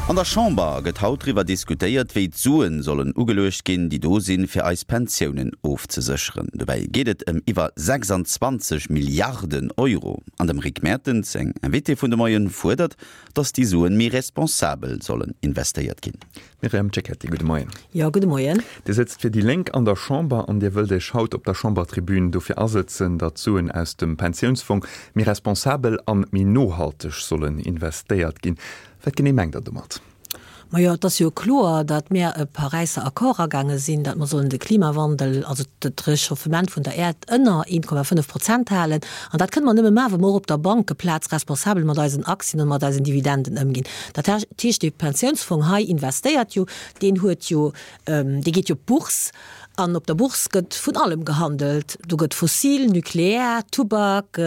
An der Chamber gëtt haut driwwer diskutéiert, wéi d'Suen sollen ugeluecht ginn, déi do sinn, fir eis Pensiounen ofzesécheren. Dobäi geet et ëm iwwer 26 Milliarden Euro. An dem Rick Mertens seng Invitée vun de Moien fuerdert, datt déi Suen méi responsabel sollen investéiert ginn. Myriam Cecchetti, gudde Moien. Jo, gudde Moien. Dir sëtzt fir déi Lénk an der Chamber an Dir wëllt Iech haut op der Chambertribün dofir asëtzen, datt d'Suen aus dem Pensiounsfong méi responsabel an méi nohalteg sollen investéiert ginn. Wat genee mengt Der domat? Majo, et ass jo kloer, datt mär e Paräisser Accord agaange sinn, datt mer sollen de Klimawandel, also d'Rechauffement vun der Äerd ënner 1,5 Prozent halen. An dat kënne mer nëmme maachen, wa mer och op der Bankeplaz responsabel mat eisen Aktien an mat eisen Dividenden ëmginn. Dat heescht, dee Pensiounsfong hei investéiert jo, deen huet jo, dee geet jo op d'Bourse an op der Bourse gëtt vun allem gehandelt. Do gëtt fossil, nuklear, Tubak,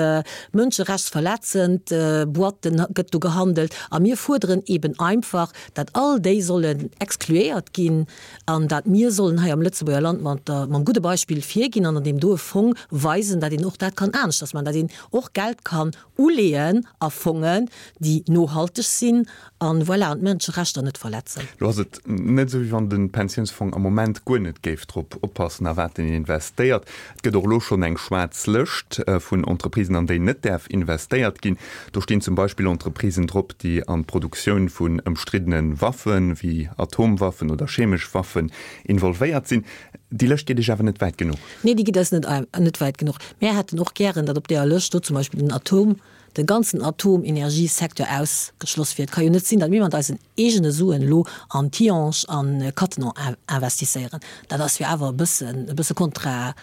mënscherechtsverletzend Boîten gëtt do gehandelt. A mir fuerderen eben einfach, dat all déi sollen excluéiert ginn an dat mir sollen hei am Lëtzebuerger Land mat der, mam gudde Beispill virginn an an deem doe Fong weisen, dat een och dat kann aneschters maachen, dat een och Geld kann Uleeën a Fongen, déi nohalteg sinn an, voilà, an d'Mënscherechter net verletzen. Lo ass et net esou, wéi wann de Pensiounsfong am Moment guer net géif drop oppassen, a wat en investéiert. Et gëtt och elo schonn eng schwaarz Lëscht vun Entreprisen, an déi net däerf investéiert ginn. Do stinn zum Beispill Entreprisen drop, déi an d'Produktioun vun ëmstriddene Waffen, wéi Atomwaffen oder chemesch Waffen, involvéiert sinn. Déi Lëscht geet Iech awer net wäit genuch. Nee, déi geet eis net, net wäit genuch. Mär hätten och gären, datt op deeër Lëscht do zum Beispill den Atom, de ganzen Atomenergiesecteur ausgeschloss wier. Et ka jo net sinn, datt mir mat eisen eegene Suen elo an Tihange an Cattenom investisséieren. Dat ass jo awer e bëssen, e bësse kontra,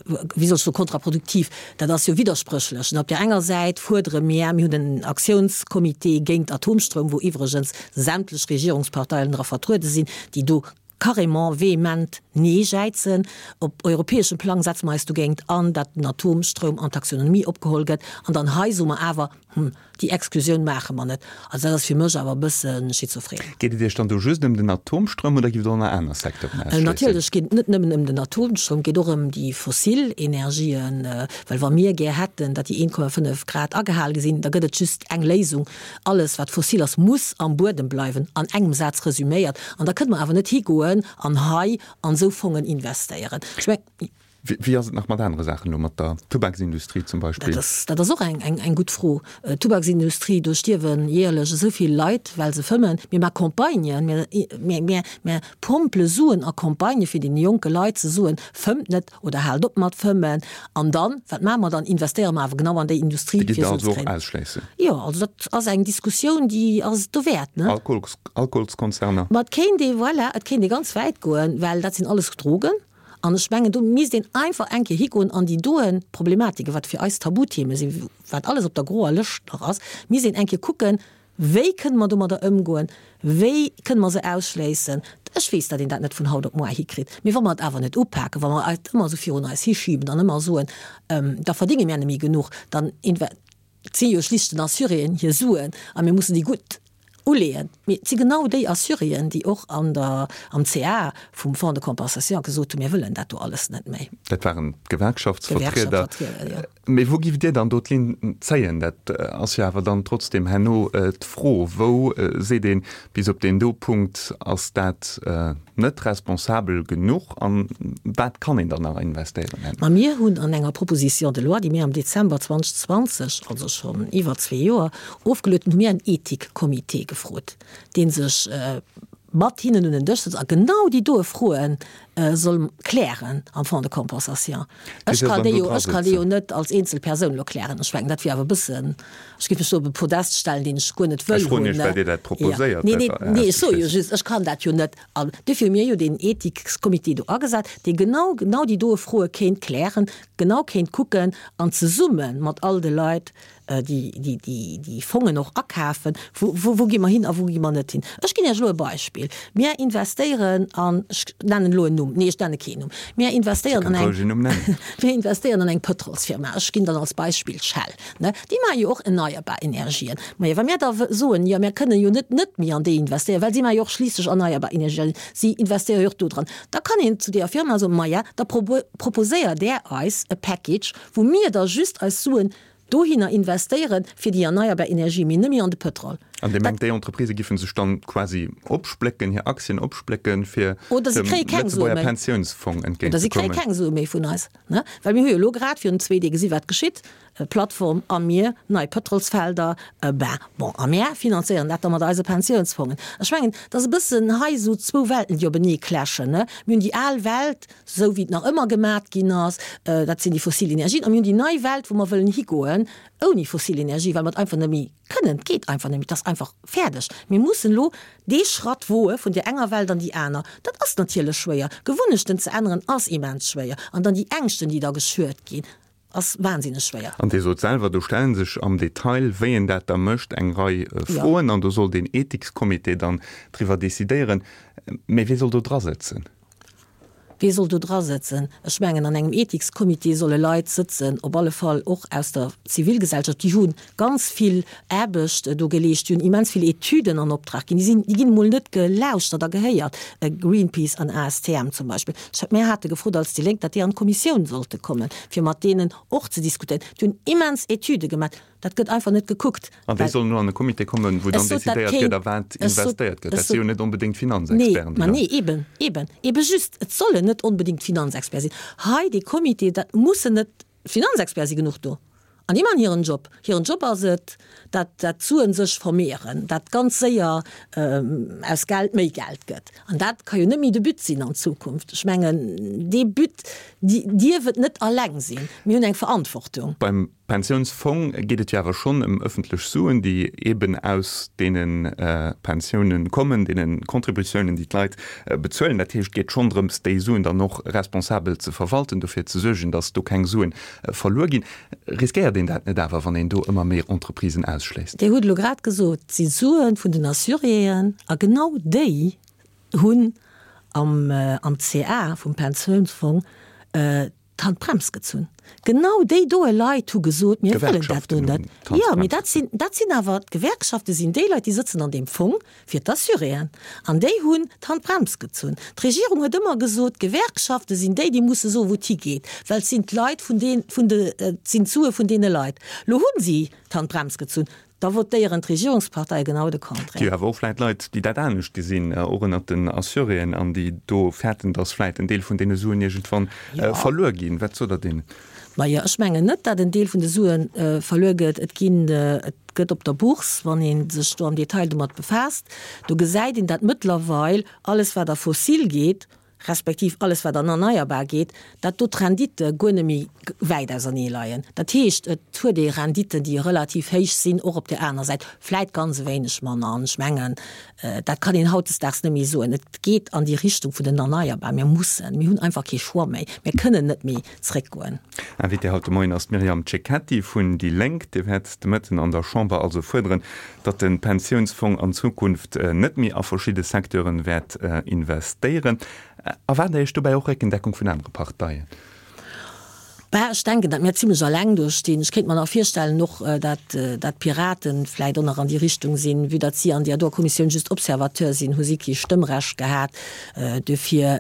wéi soll ech soen, kontraproduktiv. Dat ass jo widderspréchlech. Op där enger Säit fuerdere mir, mir hunn en Aktiounscomité géint Atomstroum, wou iwwregens sämtlech Regierungsparteien dra vertruede sinn, déi do carrément vehement Nee jäizen. Op europäeschem Plang setze mer eis dogéint an, dat den Atomstroum an d'Taxonomie opgeholl gëtt. An dann hei soe mer awer, Hm, déi Exklusioun maache mer net. Also dat ass fir mech awer e bësse schizophren. Geet et Iech dann do just ëm den Atomstroum oder giff et och nach aner Secteuren ausschléissen? Natierlech geet et net nëmmen ëm den Atomstroum, et geet och ëm déi fossil Energien. Well wa mir gär hätten, datt déi 1,5 Grad agehal gi sinn, da gëtt et just eng Léisung, Alles wat fossil ass, muss am Buedem bleiwen, an engem Saz resüméiert. An da kënne mer awer net higoen an hei an esou Fongen investéieren. Ech mengen. Wéi ass et nach mat anere Saachen elo, mat der Tubaksindustrie zum Beispill? Dat ass, dat ass och eng, eng, eng gutt Fro. D'Tubaksindustrie, do stierwe jäerlech esou vill Leit, well se fëmmen. Mir maache Campagnen, mir, mir, mir, mir pompele Suen a Campagnë fir deene jonke Leit ze soen, Fëmmt net oder haalt op mat fëmmen. An dann, wat maache mer dann? Investéiere mer awer genau an déi Industrie, Déi gitt fir Der Suen also ze och kréien. ausschléissen? Jo, also dat ass eng Diskussioun, déi ass dowäert, ne? Alkohols, Alkoholskonzerner? Ma et kéint ee, voilà, et kéint ee ganz wäit goen, well dat sinn alles Drogen. An ech mengen, do misst een einfach eng Kéier higoen an déi doen Problematiken, wat fir eis Tabutheme sinn, wat alles op der groer Lëscht nach ass, misst een eng Kéier kucken, Wéi kënne mer domadder ëmgoen? Wéi kënne mer se ausschléissen? Ech weess, datt een dat net vun haut op muar hikritt. Mee wa mer et awer net upaken, wa mer et ëmmer esou virun eis hischiben an ëmmer soen, da verdénge mär net méi genuch, dann et si jo schlicht den Assuréen hir Suen a mir mussen déi gutt uleeën. Mee et si genau déi Assuréen, déi och an der, am CA vum Fonds de compensation gesot hunn, mir wëllen dat do alles net méi. Dat waren d'Gewerkschaftsvertrieder. D'Gewerkschaftsvertrieder, jo. Mee wou giff Dir dann do d'Linn zéien? Dat ass jo awer dann trotzdem herno d'Fro. Wou seet een, bis op deen do Punkt ass dat net responsabel genuch an wat kann een dann nach investéieren herno? Ma mir hunn an enger Proposition de loi, déi mir am Dezember 2020, also schonn iwwer zwee Joer, ofgeluet hunn, hu mir en Ethikcomité gefrot, dee sech mat hinnen un en Dësch sëtzt a genau déi doe Froe soll klären am Fonds de compensation. Ech kann déi jo, ech kann déi jo net als eenzel Persoun elo klären. Ech mengen, dat wier awer e bëssen, ech géif mech do op e Podest stellen, deen ech guer net wëll hunn. Ech froen Iech, well Dir dat proposéiert. Nee, nee, nee, ech soe jo just, ech kann dat jo net. An duerfir hu mir jo deen Ethikscomité do agesat, dee genau, genau déi doe Froe kéint klären, genau kéint kucken an zesumme mat all de Leit déi Fongen och akafen, wou gi mer hin a wou gi mer net hin. Ech ginn Iech elo e Beispill, Mir investéieren an, ech nennen elo en Numm, nee ech nenne keen Numm, mir investéieren an eng, mir investéieren an eng Pëtrolsfirma, ech ginn dann als Beispill Shell, ne, déi maache jo och erneierbar Energien. Majo, wa mir da soen, jo mir kënnen jo net net méi an déi investéieren, well si maache jo och schliisslech erneierbar Energien, si investéiere jo och do dran, da kann een zu deeër Firma soen, maja, da proposéiert Där eis e Package, wou mir da just eis Suen Dohinner investéieren, fir déi erneierbar Energie, mee net méi an de Pëtrol. An Dir mengt, déi Entreprisë giffen sech dann quasi opsplécken, hir Aktien opsplécken, fir dem Lëtzebuerger Pensiounsfong entgéint ze kommen? Oder si kréie keng Sue méi vun eis. Well mir hu jo elo grad virun zwee Dee gesi wat geschitt, Plattform a mir, nei Pëtrolsfelder, ben bon, a mär finanzéieren dat da mat eise Pensiounsfongen. Ech mengen, et ass e bëssen hei esou zwou Welten, déi openee clashen. Mir hunn déi al Welt, esou wéi et nach ëmmer gemat ginn ass, dat sinn déi fossil Energien, a mir hunn déi nei Welt, wou mer wëllen higoen ouni fossil Energie, well mer et einfach net méi kënnen. Et geet einfach net méi, et ass einfach fäerdeg. Mir mussen elo dee Schratt woe vun där enger Welt an déi aner. Dat ass natierlech schwéier. Gewunnechten ze änneren ass immens schwéier. An dann déi Ängschten, déi da geschürt ginn, ass wahnsinneg schwéier. An Dir sot selwer, do stelle sech am Detail, wéi een dat da mécht, eng Rei Froen. An do soll deen Ethikscomité dann driwwer decidéieren. Mä wie soll do drasëtzen? Wee soll do dra sëtzen? Ech mengen, an engem Ethikscomité solle Leit sëtzen, op alle Fall och aus der Zivilgesellschaft, déi hu ganz vill Aarbecht do geleescht, déi hunn immens vill Etüden an Optrag ginn, déi sinn, déi ginn emol net gelauschtert a gehéiert, Greenpeace an ASTM zum Beispill. Ech, mir hate gefrot als déi Lénk, datt déi an d'Kommissioun sollte kommen, fir mat deenen och ze diskutéieren. Déi hunn immens Etüde gemaach. Dat gëtt einfach net gekuckt. An déi sollen elo an e Comité kommen, wou dann decidéiert gëtt, a wat investéiert gëtt. Dat si jo net onbedéngt Finanzexperten, déi dann. Nee, eben, eben, eben just, et sollen net onbedéngt Finanzexperte sinn. Hei dee Comité, dat mussen net, Finanzexperte si genuch do an déi maachen hiren Job. Hiren Job ass et, dat dat d'Suen sech vermehren, dat ganz séier aus Geld méi Geld gëtt. An dat ka jo net méi de But sinn an Zukunft. Ech mengen, dee But dierf et net alleng sinn. Mir hunn eng Verantwortung. Beim Pensiounsfong geet et jo awer schonn ëm ëffentlech Suen, déi eeben aus deene Pensiounen kommen, deene Contributiounen, déi d'Leit bezuelen. Dat heescht, et geet schonn drëms, déi Suen dann och responsabel ze verwalten, dofir ze suergen, datt do keng Suen verluer ginn. Riskéiert een dat net awer, wann een do ëmmer méi Entreprisen ausschléisst? Dir hutt elo grad gesot, et si Sue vun den Assuréen a genau déi hunn am CA vum Pensiounsfong d'Handbrems gezunn. Genau déi doe Leit hu gesot, mir wëllen dat do net. Jo, mee dat sinn, dat sinn awer, d'Gewerkschafte sinn déi Leit, déi sëtzen an deem Fong fir d'Assuréen. An déi hunn d'Handbrems gezunn. D'Regierung huet ëmmer gesot, d'Gewerkschafte sinn déi, déi musse soen, wou et higeet, well et sinn d'Leit vun deen, vun de, et sinn d'Sue vun deene Leit. Lo hu si d'Handbrems gezunn. Da votéieren d'Regierungsparteie genau de Contraire. Et gi awer och vläit Leit, déi dat anescht gesinn, och ënnert den Assuréen, an déi do fäerten, datt vläit en Deel vun deene Suen iergendwann verluer ginn. Wat sot Der deenen? Majo, ech mengen net, datt en Deel vun de Sue verluer gëtt. Et ginn, et gëtt op der Bourse, wann ee sech do am Detail domat befaasst, do gesäit een, datt mëttlerweil alles, wat a fossil geet, respektiv alles wat an erneierbar geet, dat do d'Renditte guer net méi wäit ausernee leien. Dat heescht, et huet ee Renditten, déi relativ héich sinn, och op där aner Säit vläit ganz e wéineg manner. An ech mengen, dat kann een hautdesdaags net méi soen. Et geet an déi Richtung vun den Erneierbar. Mir mussen, mir hunn einfach kee Choix méi. Mir kënnen net méi zréckgoen. Invitée haut de Moien ass d'Myriam Cecchetti vun déi Lénk. Dir wäert de Mëtten an der Chamber also fuerderen, datt de Pensiounsfong an Zukunft net méi a verschidde Secteuren wäert investéieren. Erwaart Der Iech dobäi och Réckendeckung vun anere Parteien? Bah, ech denken, datt mir zimlech alleng do stinn. Ech kéint mer nach virstellen och, datt d'Piraten vläit och nach an déi Richtung sinn. Vue datt si an där doer Kommissioun just Observateur sinn, hu si kee Stëmmrecht gehat. Duerfir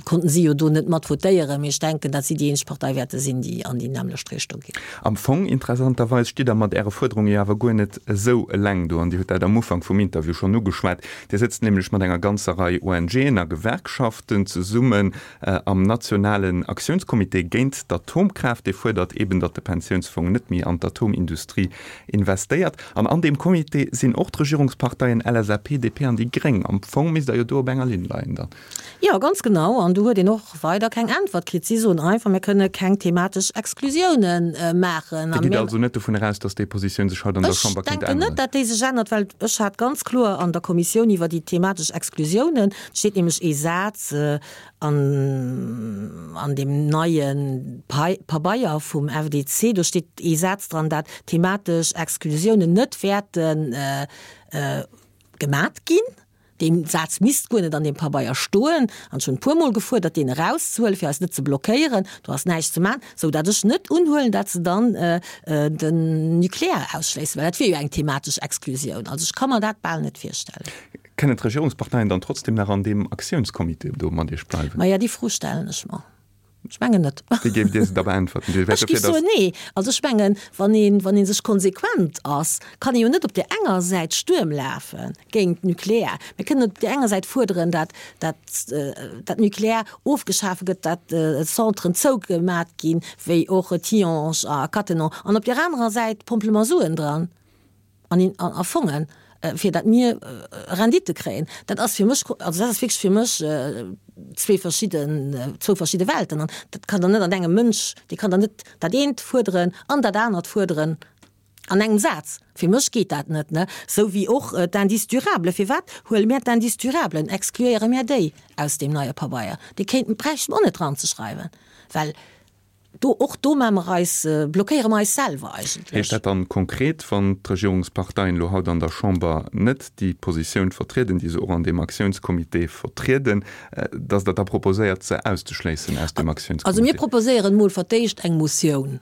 konnten si jo do net mat votéieren. Mee ech denken, datt si déi eenzeg Partei wäerte sinn, déi an déi nämmlecht Richtung geet. Am Fong, interessanterweis, stitt Der mat Äre Fuerderunge jo awer guer net esou eleng do. An Dir hutt dat am Ufank vum Interview schonn ugeschwat. Dir sëtzt nämlech mat enger ganzer Rei ONGen a Gewerkschaften zesummen am nationalen Aktiounscomité géint d'Atomkraaft. Dee fuerdert eeben, datt de Pensiounsfong net méi an d'Atomindustrie investéiert. An an deem Comité sinn och d'Regierungsparteien LSAP, DP an déi Gréng. Am Fong misst Der jo do op enger Linn leien dann. Jo, ganz genau. An do huet een och weider keng Äntwert kritt. Si soen einfach, mir kënne keng thematesch Exklusiounen maachen. Dir gitt also net dovun eraus, datt déi Positioun sech haut an der Chamber kéint änneren? Ech denken net, datt déi sech ännert, well ech hat ganz kloer an der Kommissioun iwwer déi thematesch Exklusiounen, et steet nämlech ee Saz an an deem neie Pabeier vum FDC, do steet ee Saz dran, dat thematesch Exklusiounen net wäerte gemat ginn. Dee Saz misst guer net an deem Pabeier stoen. An ech hunn e puermol gefuerdert, deen erauszehuelen, fir eis net ze blockéieren. Do ass näischt ze maachen, sou dat ech net unhuelen, dat se dann den Nucléaire ausschléissen, well dat wier jo eng thematesch Exklusioun. Also ech ka mer dat bal net virstellen. Kënnen d'Regierungsparteien dann trotzdem nach an deem Aktiounscomité do mat Iech bleiwen? Maja, déi Fro stellen ech mer. Ech mengen net. Wéi géift Dir se da beäntwerten? Dir wäert Ech géif dofir, soen, datt. nee. Also ech mengen, wann een, wann ee sech konsequent ass, kann ee jo net op där enger Säit Stuerm lafe géint d'Nucleaire. Mir kënnen op där enger Säit fuerderen, dat, dat, dat Nucleaire ofgeschafe gëtt, dat Centren zougemat ginn, wéi och Tihange a Cattenom, an op där anerer Säit pompele mer Suen dran. an in a Fongen, fir dat mir Rendite kréien, dat ass fir mech, also dat ass wierklech fir mech zwee verschidden, zwou verschidde Welten. An dat kann der net an engem Mënsch, dee kann der net dat eent fuerderen an dat anert fuerderen an engem Saz. Fir mech geet dat net, ne? Sou wéi och d'Indices durables. Firwat huele mir d'Indices durables, excluéiere mir déi aus deem neie Pabeier? Déi kéinten, bräichte mer och net dranzeschreiwen, well Do, och do maache mer eis, blockéiere mer eis selwer eigentlech. Heescht dat dann konkret, wann d'Regierungsparteien elo haut an der Chamber net déi Positioun vertrieden, déi se och an deem Aktiounscomité vertrieden, datt Der da proposéiert, se auszeschléissen aus deem Aktiounscomité? Also mir proposéieren emol fir d'éischt eng Motioun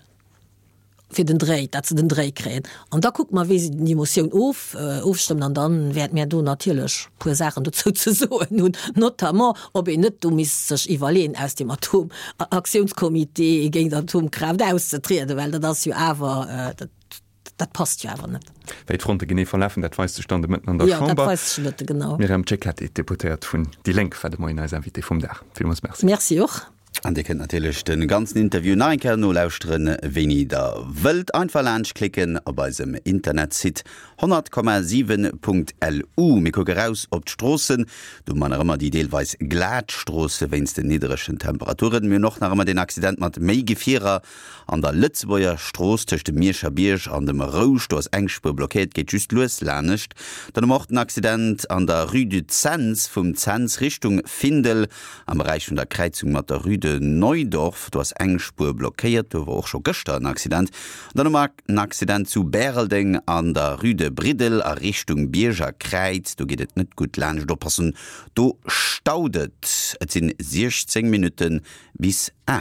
fir den Dréi, datt se den Dréi kréien. An da kucke mer, wéi se déi Motioun of, ofstëmmen. An da wäerte mir do natierlech e puer Saachen dozou ze soen hunn, notamment ob een net do misst sech iwwerleeën, aus dem Atom-Aktiounscomité géint Atomkraaft auszetrieden, well dat ass jo awer, dat, dat passt jo awer net. Wéi d'Fronte genee verlafen, dat weist sech dann de Mëtten an der Jo, dat Chamber. weist sech de Mëtte, genau. D'Myriam Cecchetti, Deputéiert vun déi Lénk, war de Moien eis Invitée vum Dag. Villmools Merci. Merci och. An Dir kënnt natierlech de ganzen Interview nach eng Kéier nolauschteren, wéini der wëllt. Einfach laanscht klicken op eisem Internetsite 100,7.lu. Mir kucke raus op d'Stroossen. Do hu mer nach ëmmer déi deelweis glat Stroosse wéinst den nidderegen Temperaturen. Mir hunn och nach ëmmer deen Accident mat méi Gefierer an der Lëtzebuerger Strooss tëscht dem Mierscher Bierg an dem Rouge. Do ass eng Spuer blockéiert, geet just lues lanescht. Dann hu mer och den Accident an der Rue du Cents vum Cents Richtung Findel. Am Beräich vun der Kräizung mat der Rue de Neudorf, do ass eng Spuer blockéiert. Do war och scho gëschter en Accident. An dann hu mer en Accident zu Bäreldeng an der Rue de Briddel a Richtung Bierger Kräiz. Do geet et net gutt laanscht. Oppassen, do staut et. Et sinn 16 Minutte bis 8.